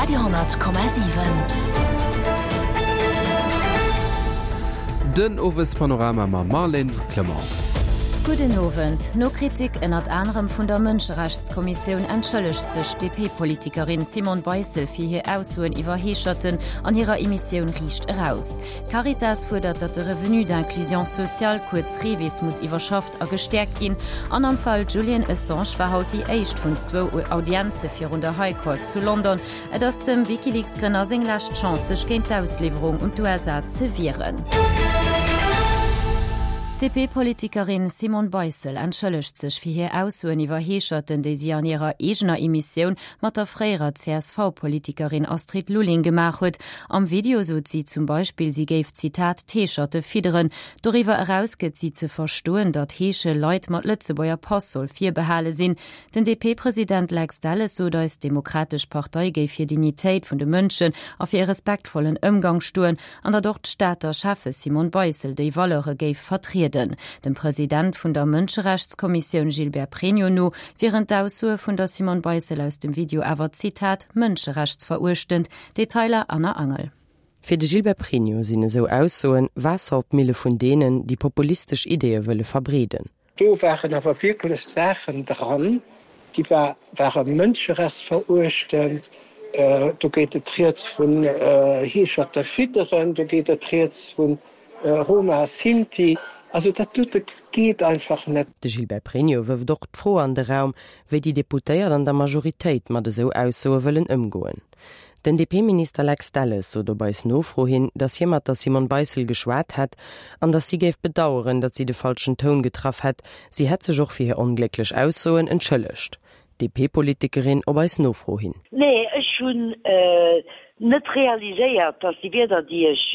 Radio,7. Den Owespanorama mam Marlène Clement. Gudden Owend. No Kritik ënnert anerem vun der Mënscherechtskommissioun entschëllegt sech d'DP-Politikerin Simone Beissel fir hir Aussoen iwwer Heescherten an hirer Emissioun Riicht Eraus. D'Caritas fuerdert, datt de Revenu d'inclusion sociale, kuerz REVIS, muss iwwerschafft a gestäerkt ginn. An am Fall Julian Assange war haut déi éischt vun zwou Audienze virun der High Court zu London. Et ass dem WikiLeaks-Grënner seng lescht Chance, sech géint d'Ausliwwerung un d'USA ze wieren. D'DP-Politikerin Simone Beissel entschëllegt sech fir hir Aussoen iwwer Heescherten, déi si an hirer eegener Emissioun mat der fréierer CSV-Politikerin Astrid Lulling gemaach huet. Am Video sot si zum Beispill, si géif, Zitat, d'Heescherte fidderen. Doriwwer eraus gëtt si ze verstoen, datt Heesche Leit mat Lëtzebuerger Pass soll virbehale sinn. Den DP-President Lex Delles sot eis, d'Demokratesch Partei géif fir Dignitéit vun de Mënschen a fir e respektvollen Ëmgang stoen an datt och d'Stater Schäffe Simone Beissel déi Valeure géif vertrieden. Dem President vun der Mënscherechtskommissioun Gilbert Pregno no wieren d'Aussoe vun der Simone Beissel aus dem Video awer, Zitat, mënscherechtsveruechtend. Detailer Anna Angel. Fir de Gilbert Pregno sinn esou Aussoen Waasser op d'Mille vun deenen, déi populistesch Ideeë wëlle verbreeden. Do waren awer wierklech Saachen dran, déi ware mënscherechtsveruechtend. Do geet et rieds vun Heescherte fidderen, do geet et rieds vu Roma, Sinti. Also dat dote geet einfach net. De Gilbert Pregno wërft och d'Fro an de Raum, wéi déi Deputéiert an der Majoritéit mat esou Aussoe wëllen ëmgoen. Den DP-Minister Lex Delles sot op eis Nofro hin, datt hie mat der Simone Beissel geschwat hätt an datt si géif bedaueren, datt si de falschen Toun getraff hätt. Si hätt sech och fir hir onglécklech Aussoen entschëllegt. D'DP-Politikerin op eis Nofro hin. Nee, ech hunn net realiséiert, datt déi Wierder, déi ech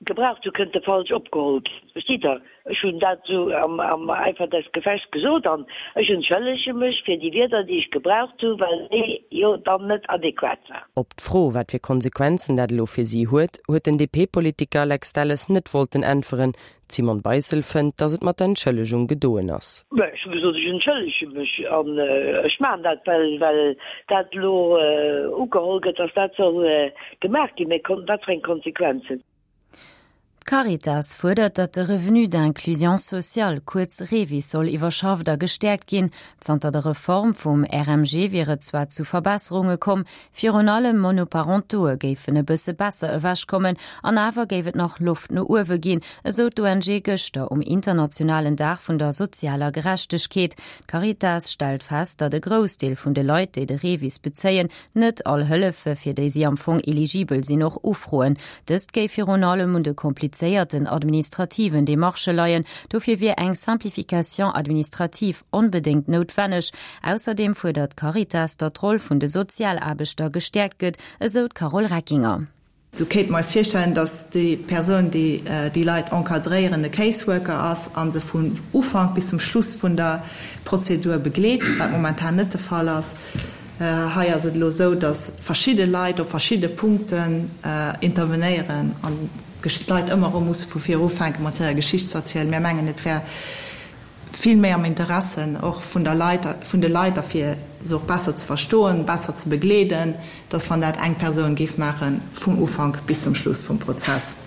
Gebraucht hu kënnte falsch opgeholl ginn. Verstitt Der? Ech hunn dat esou am Eifer des Gefechts gesot an ech entschëllege mech fir déi Wierder, déi ech gebraucht hu, well déi jo dann net adequat waren. Op d'Fro, wat fir Konsequenzen dat elo fir si huet, huet den DP-Politiker Lex Delles net wollten äntweren. D'Simone Beissel fënnt, datt et mat der Entschëllegung gedoen ass. Mä ech hu gesot, ech entschëllege mech an ech maachen dat, well well dat elo ugeholl gëtt, datt dat soll Gemaach ginn, mä wat fir eng Konsequenzen? D'Caritas fuerdert, datt de Revenu d'inclusion sociale, kuerz REVIS, soll iwwerschafft a gestäerkt ginn. Zanter der Reform vum RMG wier et zwar zu Verbesserunge komm, virun allem Monoparentoe géifen e bësse besser ewechkommen, an awer géif et nach Loft no uewe ginn, esou d'ONG gëschter um internationalen Dag vun der sozialer Gerechtegkeet. D'Caritas stellt fest, datt e Groussdeel vun de Leit, déi de REVIS bezéien, net all Hëllefe fir déi si am Fong eligibel sinn och ufroen. Dëst géif virun allem un de komplizéierten administrativen Demarchë leien. Dofir wier eng Simplification administrative onbedéngt noutwenneg. Ausserdeem fuerdert d'Caritas, datt d'Roll vun de Sozialaarbechter gestäerkt gëtt, esou d'Carole Reckinger. Sou kéinte mer eis virstellen, dass déi Persoun, déi déi Leit encadréieren, e Caseworker ass a se vun Ufank bis zum Schluss vun der Prozedur begleet, wat momentan net de Fall ass. Hei ass et elo esou, dass verschidde Leit op verschidde Punkten intervenéieren an d'Leit ëmmer erëm musse vu vir ufänken, mat hirer Geschicht ze erzielen. Mir mengen, et wär vill méi am Interesse och vun der Leit, vun de Leit a fir se och besser ze verstoen, besser ze begleeden, dass wann dat eng Persoun géif maachen, vum Ufank bis zum Schluss vum Prozess.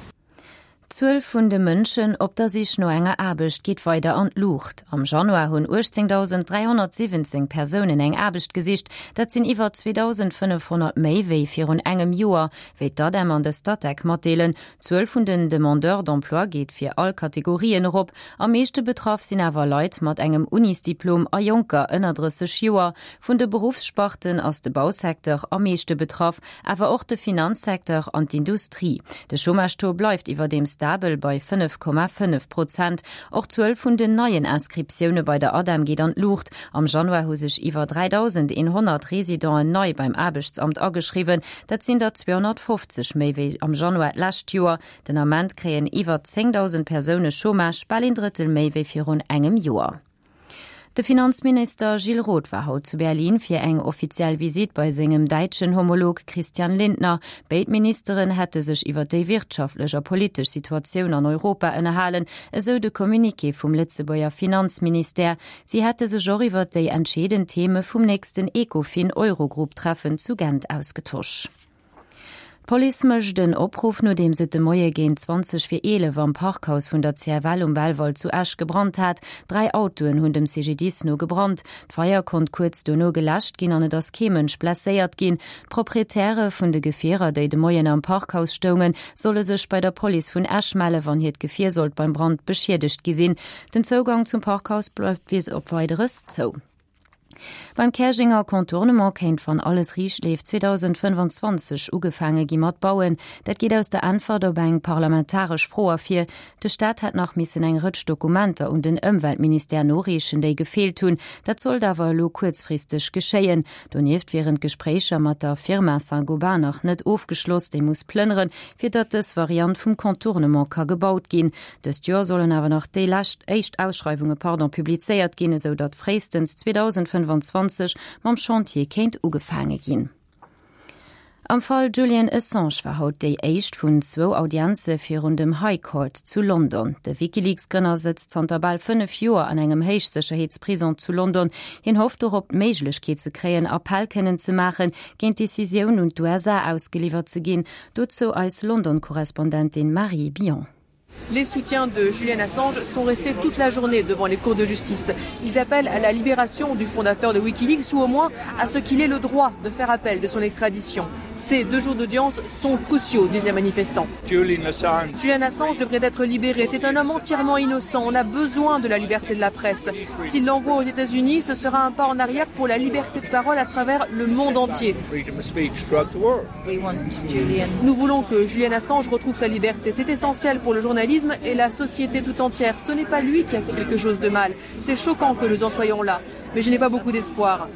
D'Zuel vun de Mënschen op der Sich no enger Aarbecht geet weider an d'Luucht. Am Januar hunn 18.317 Persounen eng Aarbecht gesicht. Dat sinn iwwer 2.500 méi wéi virun engem Joer, wéi d'ADEM an de Statec matdeelen. D'Zuel vun den Demandeurs d'emploi geet fir all Kategorien erop. Am meeschte betraff sinn awer Leit mat engem Unisdiplom a Jonker ënner 30 Joer. Vun de Beruffssparten ass de Bausecteur am meeschte betraff, awer och de Finanzsecteur an d'Industrie. De Chômage-Taux bleift iwwerdeem stabel bei 5,5 Prozent. Och d'Zuel vun den neien Inscriptioune bei der ADEM geet an d'Luucht. Am Januar hu sech iwwer 3.100 Residenten nei beim Aarbechtsamt ageschriwwen. Dat sinn der 250 méi wéi am Januar d'lescht Joer. Den Ament kréien iwwer 10.000 Persoune Chômage, bal een Drëttel méi wéi virun engem Joer. De Finanzminister Gilles Roth war haut zu Berlin fir eng offiziell Visitt bei sengem däitschen Homolog Christian Lindner. Béid Ministeren hätte sech iwwer déi wirtschaftlech a politesch Situatioun an Europa ënnerhalen, esou de Communiqué vum Lëtzebuerger Finanzministère. Si hätte sech och iwwer déi entscheedend Theme vum nächsten Ecofin-Eurogroup-Treffen zu Gent ausgetosch. D'Police mécht en Opruff, nodeems et de Moie géint 20 vir 11 am Parkhaus vun der CFL um Belval zu Esch gebrannt hat. 3 Autoen hunn dem CGDIS no gebrannt. D'Feier konnt kuerz dono geläscht ginn an et ass kee Mënsch blesséiert ginn. D'Proprietäre vun de Gefierer, déi de Moien am Parkhaus stoungen, solle sech bei der Police vun Esch melle wann hiert Gefier sollt beim Brand beschiedegt gi sinn. Den Zougang zum Parkhaus bleift bis op Weideres zou. Beim Käerjenger Contournement kéint, wann alles riicht leeft, 2025 ugefaange gi mat bauen. Dat geet aus der Äntwert op eng parlamentaresch Fro ervir. De Staat hätt nach missen eng Rëtsch Dokumenter un den Ëmweltministère noreechen, déi gefeelt hunn. Dat sollt awer elo kuerzfristeg geschéien. Donieft wieren d'Gespréicher mat der Firma Saint-Gobain nach net ofgeschloss. Déi muss plënneren, fir datt dës Variant vum Contournement ka gebaut ginn. Dëst Joer sollen awer nach déi lescht éischt Ausschreiwunge pardon publizéiert ginn, esou datt fréistens 2025 mam Chantier kéint ugefaange ginn. Am Fall Julian Assange war haut déi éischt vun zwou Audienze virun dem High Court zu London. De WikiLeaks-Grënner sëtzt zanter bal 5 Joer an engem Héichsécherheetsprison zu London. Hien hofft dorop, d'Méiglechkeet ze kréien, Appell kënnen ze maachen, géint d'Decisioun un d'USA ausgeliwwert ze ginn. Dozou eis London-Korrespondentin Marie Billon. Les soutiens de Julian Assange sont restés toute la journée devant les cours de justice. Ils appellent à la libération du fondateur de Wikileaks ou au moins à ce qu'il ait le droit de faire appel de son extradition. Ces deux jours d'audience sont cruciaux, disent les manifestants. Julian Assange. Julian Assange devrait être libéré. C'est un homme entièrement innocent. On a besoin de la liberté de la presse. S'il l'envoie aux États-Unis, ce sera un pas en arrière pour la liberté de parole à travers le monde entier. Nous voulons que Julian Assange retrouve sa liberté. C'est essentiel pour le journalisme et la société tout entière. Ce n'est pas lui qui a fait quelque chose de mal. C'est choquant que nous en soyons là, mais je n'ai pas beaucoup d'espoir.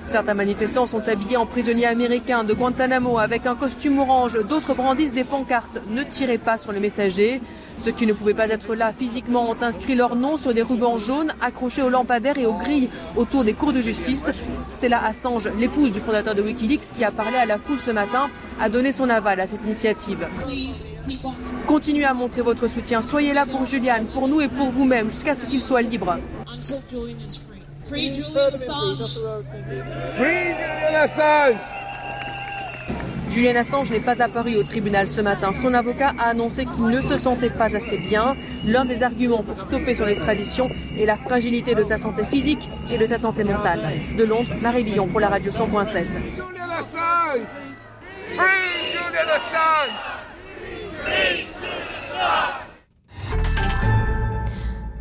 Certains manifestants sont habillés en prisonniers américains de Guantanamo avec un costume orange. D'autres brandissent des pancartes. Ne tirez pas sur le messager. Ceux qui ne pouvaient pas être là physiquement ont inscrit leur nom sur des rubans jaunes accrochés aux lampadaires et aux grilles autour des cours de justice. Stella Assange, l'épouse du fondateur de Wikileaks qui a parlé à la foule ce matin, a donné son aval à cette initiative. Continuez à montrer votre soutien. Soyez là pour Julian, pour nous et pour vous-même jusqu'à ce qu'il soit libre. Free Julian Assange. Free Julian Assange. Julian Assange n'est pas apparu au tribunal ce matin. Son avocat a annoncé qu'il ne se sentait pas assez bien. L'un des arguments pour stopper son extradition est la fragilité de sa santé physique et de sa santé mentale. De Londres, Marie Billon pour la radio 100.7. Julian Assange Free Julian Assange Free Julian Assange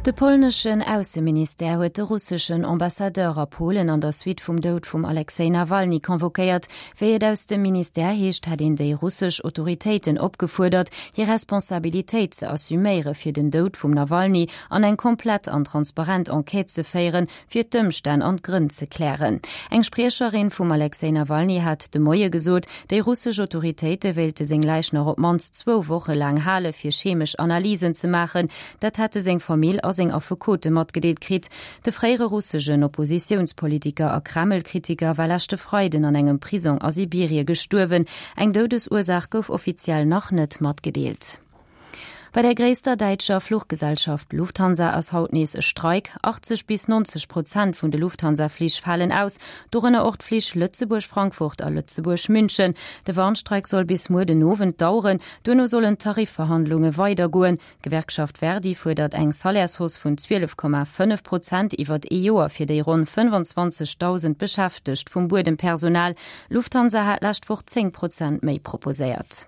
De polneschen Ausseministère huet de russeschen Ambassadeur a Polen an der Suite vum Doud vum Alexej Nawalny convoquéiert. Wéi et aus dem Ministère heescht, hätt een déi russesch Autoritéiten opgefuerdert, hir Responsabilitéit ze assuméiere fir den Doud vum Nawalny an eng komplett an transparent Enquête ze féieren, fir d'Ëmstänn an d'Grënn ze klären. Eng Spriecherin vum Alexej Nawalny hat de Moie gesot, déi russesch Autoritéite wéilte seng Läich nach op d'mannst zwou Woche laang hale fir chemesch Analysen ze maachen. Dat hätte seng Famill a seng Affekote matgedeelt kritt. De fréiere russegen Oppositiounspolitiker a Kreml-Kritiker war leschte Freiden an engem Prisong a Sibirie gestuerwen. Eng Doudesursaach gouf offiziell nach net matgedeelt. Bei der gréisster däitscher Fluchgesellschaft Lufthansa ass haut nees e Streik. 80 bis 90 Prozent vun de Lufthansa-Flich falen aus, dorënner och d'Flich Lëtzebuerg-Frankfurt a Lëtzebuerg-München. De Warnstreik soll bis muer den Owend daueren. Duerno sollen d'Tarifverhandlunge weidergoen. D'Gewerkschaft Verdi fuerdert eng Salairshausse vun 12,5 Prozent iwwert ee Joer fir déi ronn 25.000 Beschäftegt vum Buedempersonal. Lufthansa hat d'lescht Woch 10 Prozent méi proposéiert.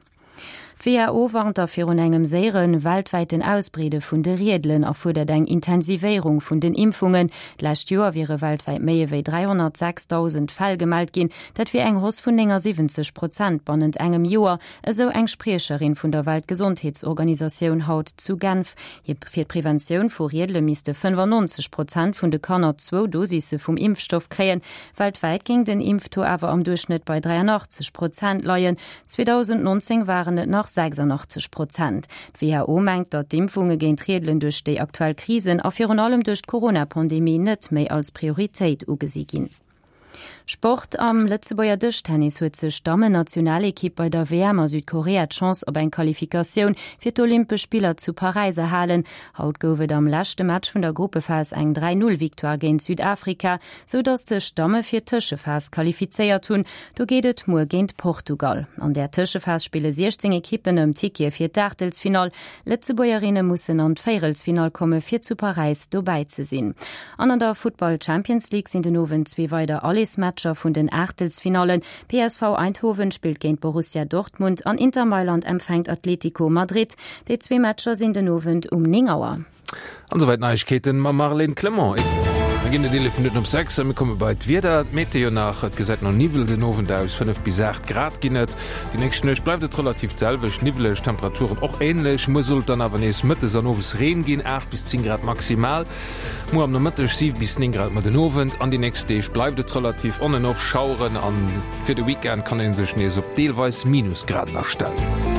D'WHO warnt da virun engem séiere weltwäiten Ausbreede vun de Riedelen a fuerdert eng Intensivéierung vun den Impfungen. D'lescht Joer wiere weltwäit méi ewéi 306.000 Fäll gemellt ginn. Dat wier eng Hausse vun 79 Prozent bannent engem Joer, esou eng Spriecherin vun der Weltgesondheetsorganisatioun haut zu Genf. Fir d'Preventioun vu Riedele misste 95 Prozent vun de Kanner zwou Dosisse vum Impfstoff kréien. Weltwäit géing den Impftaux awer am Duerchschnëtt bei 83 Prozent leien. 2019 waren et nach. 86 Prozent. D'WHO mengt, datt d'Impfunge géint Riedelen duerch déi aktuell Krisen a virun allem duerch d'Corona-Pandemie net méi als Prioritéit ugesi ginn. Sport, Am Lëtzebuerger Dëschtennis huet sech d'Dammen-Nationalekipp bei der WM a Südkorea d'Chance op eng Qualifikatioun fir d'Olympesch Spiller zu Paräis erhalen. Haut gouf et am leschte Match vun der Gruppephas eng 3, 0 Victoire géint Südafrika, sou datt sech d'Damme fir d'Tëschephas qualifizéiert hunn. Do geet et muer géint Portugal. An där Tëschephas spille 16 Ekippen ëm Tickete fir d'Aachtelsfinall. Lëtzebuergerinne mussen an d'Véierelsfinall komme fir zu Paräis dobäi ze sinn. An an der Futtball Champions League sinn den Owend zwee weider Allersmatcher vun den Aachtelsfinallen. PSV Eindhoven spillt géint Borussia Dortmund an Inter Mailand empfänkt Atletico Madrid. Déi zwee Matcher sinn den Owend um 9 Auer. An esouwäit d'Neiegkeeten mam Marlène Clement. Mir ginn et 11 Minutten op 6 a mir komme bei d'Wieder. D'Meteo nach, Et gesäit no Niwwel den Owend aus, 5 bis 8 Grad ginn et. Déi nächst Nuecht bleift et relativ d'selwecht, niwweleg, Temperaturen och änlech. Muer soll et dann awer nees mëttes an owes Reen ginn, 8 bis 10 Grad maximal. Muer am Nomëtteg 7 bis 9 Grad, ma den Owend an déi nächst Deeg bleift et relativ on en off, Schaueren an fir de Weekend kann ee sech nees op deelweis Minusgraden astellen.